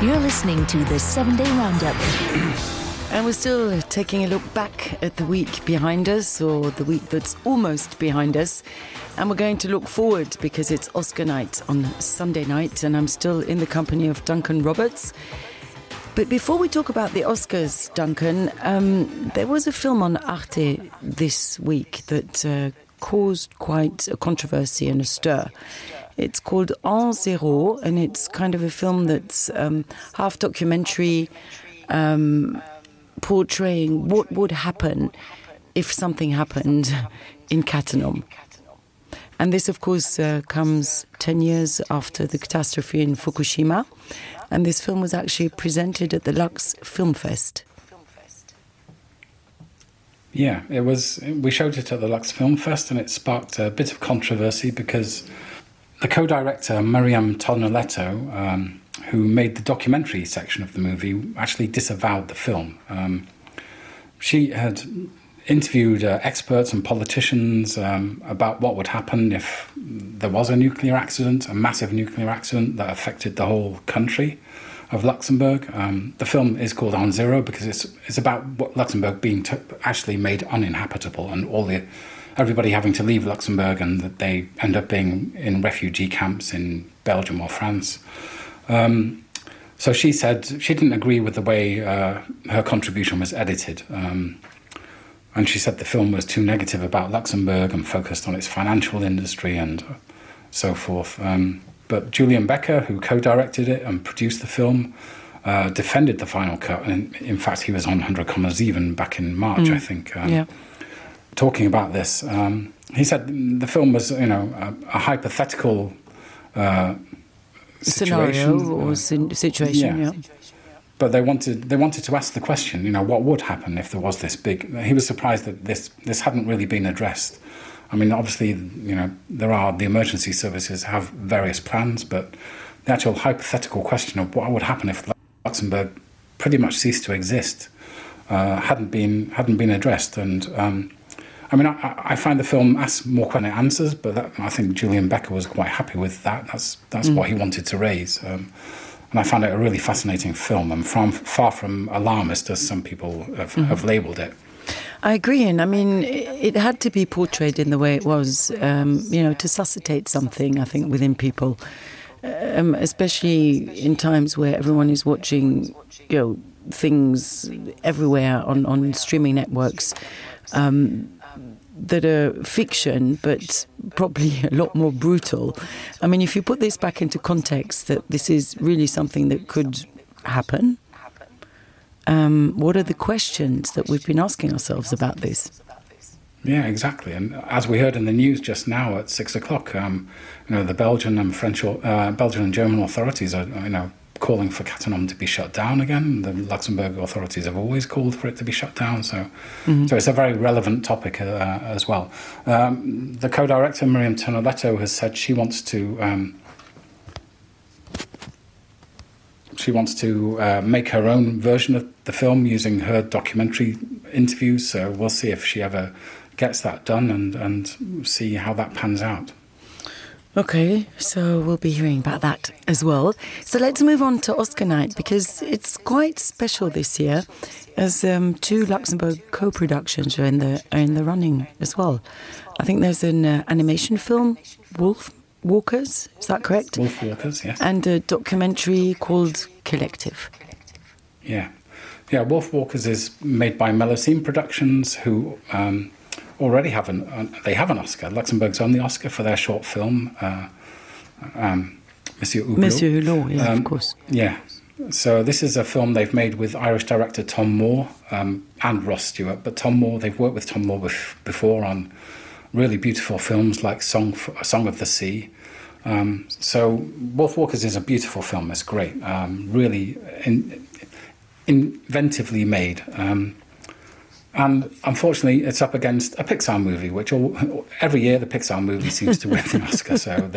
You're listening to the 7-Day Roundup. And we're still taking a look back at the week behind us, or the week that's almost behind us. And we're going to look forward because it's Oscar night on Sunday night, and I'm still in the company of Duncan Roberts. But before we talk about the Oscars, Duncan, there was a film on Arte this week that caused quite a controversy and a stir. It's called En Zero, and it's kind of a film that's half documentary, portraying what would happen if something happened in Cattenom. And this, of course, comes 10 years after the catastrophe in Fukushima. And this film was actually presented at the Lux Film Fest. Yeah, it was. We showed it at the Lux Film Fest, and it sparked a bit of controversy because the co-director, Miriam Tonelletto, who made the documentary section of the movie, actually disavowed the film. She had interviewed experts and politicians about what would happen if there was a nuclear accident, a massive nuclear accident that affected the whole country of Luxembourg. The film is called En Zero because it's about what Luxembourg being actually made uninhabitable, and everybody having to leave Luxembourg, and that they end up being in refugee camps in Belgium or France. So she said she didn't agree with the way her contribution was edited. And she said the film was too negative about Luxembourg and focused on its financial industry and so forth. But Julian Becker, who co-directed it and produced the film, defended the final cut. And in fact, he was on 100 Commas Even back in March, I think, talking about this. He said the film was, a hypothetical scenario or situation, yeah. But they wanted to ask the question, what would happen if there was this big... He was surprised that this hadn't really been addressed. I mean, obviously, the emergency services have various plans, but the actual hypothetical question of what would happen if Luxembourg pretty much ceased to exist hadn't been addressed. And I find the film asks more than it answers, but I think Julian Becker was quite happy with that. That's what he wanted to raise. And I found it a really fascinating film, and far from alarmist, as some people have labelled it. I agree, and I mean, it had to be portrayed in the way it was, to suscitate something, I think, within people, especially in times where everyone is watching, things everywhere on streaming networks that are fiction, but probably a lot more brutal. I mean, if you put this back into context, that this is really something that could happen, what are the questions that we've been asking ourselves about this? Yeah, exactly. And as we heard in the news just now at 6 o'clock, the Belgian and German authorities are, calling for Cattenom to be shut down again. The Luxembourg authorities have always called for it to be shut down. So it's a very relevant topic as well. The co-director, Miriam Tonelletto, has said she wants to make her own version of the film using her documentary interviews. So we'll see if she ever gets that done and see how that pans out. Okay, so we'll be hearing about that as well. So let's move on to Oscar night, because it's quite special this year, as two Luxembourg co-productions are in the running as well. I think there's an animation film, Wolf Walkers, is that correct? Wolf Walkers, yes. And a documentary called Collective. Yeah, Wolf Walkers is made by Melusine Productions, who... already have an Oscar. Luxembourg's only Oscar for their short film, Monsieur Hublot. Monsieur Hublot, yeah, of course. Yeah. So this is a film they've made with Irish director Tom Moore and Ross Stewart. But they've worked with Tom Moore before on really beautiful films like Song of the Sea. So Wolf Walkers is a beautiful film. It's great. Really inventively made. And unfortunately, it's up against a Pixar movie, which every year the Pixar movie seems to win an Oscar. So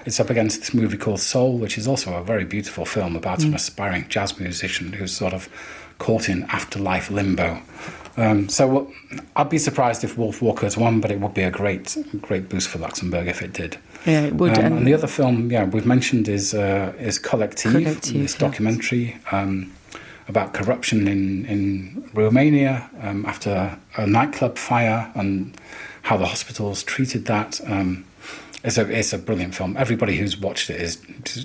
it's up against this movie called Soul, which is also a very beautiful film about an aspiring jazz musician who's sort of caught in afterlife limbo. So I'd be surprised if Wolf Walkers won, but it would be a great boost for Luxembourg if it did. Yeah, it would. And the other film, we've mentioned is Collective, this documentary about corruption in Romania after a nightclub fire and how the hospitals treated that. It's a brilliant film. Everybody who's watched it has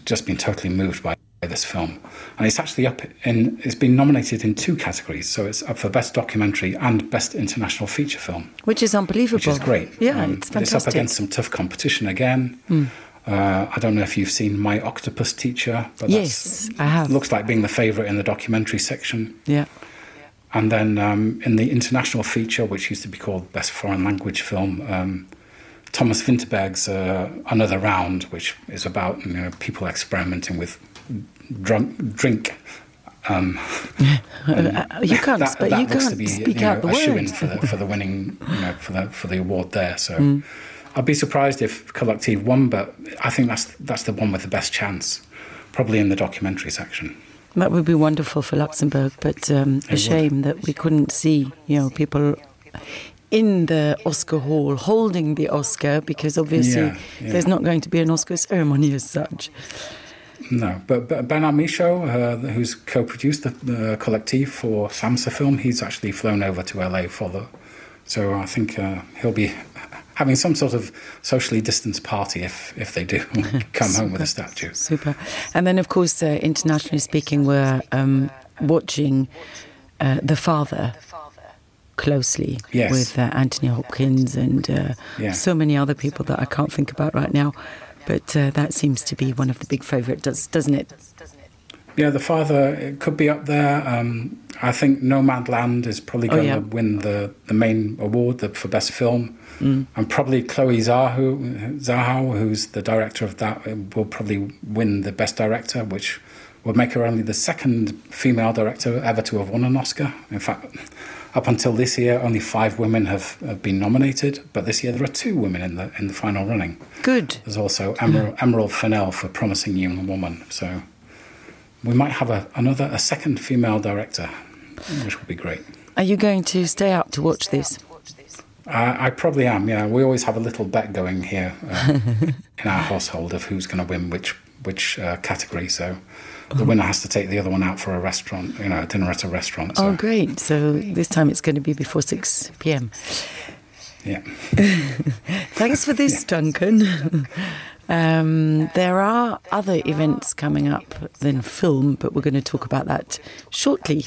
just been totally moved by this film, and it's actually it's been nominated in 2 categories, so it's up for Best Documentary and Best International Feature Film, which is unbelievable. Which is great. Yeah, it's fantastic. It's up against some tough competition again. I don't know if you've seen My Octopus Teacher, but yes, I have. Looks like being the favourite in the documentary section. Yeah. And then in the international feature, which used to be called Best Foreign Language Film, Thomas Vinterberg's Another Round, which is about people experimenting with drink. You can't speak out the word. Shoo-in for the winning, for the award there. So I'd be surprised if Collective won, but I think that's the one with the best chance, probably in the documentary section. That would be wonderful for Luxembourg, but a shame that we couldn't see, people in the Oscar hall holding the Oscar, because obviously there's not going to be an Oscar ceremony as such. No, but Bernard Michaud, who's co-produced the Collective for SAMSA Film, he's actually flown over to LA so I think he'll be having some sort of socially distanced party if they do come home with a statue. Super. And then, of course, internationally speaking, we're watching The Father closely with Anthony Hopkins and so many other people that I can't think about right now. But that seems to be one of the big favourites, doesn't it? Yeah, The Father, it could be up there. I think Nomadland is probably going to win the main award for Best Film. And probably Chloe Zhao, who's the director of that, will probably win the Best Director, which would make her only the second female director ever to have won an Oscar. In fact, up until this year, only 5 women have been nominated, but this year there are 2 women in the final running. Good. There's also Emerald Fennell for Promising Young Woman. So we might have a second female director, which would be great. Are you going to stay up to watch this? I probably am, yeah. We always have a little bet going here in our household of who's going to win which category, so the winner has to take the other one out for a restaurant, a dinner at a restaurant. So. Oh, great. So this time it's going to be before 6 p.m. Yeah. Thanks for this, Duncan. There are other events coming up than film, but we're going to talk about that shortly.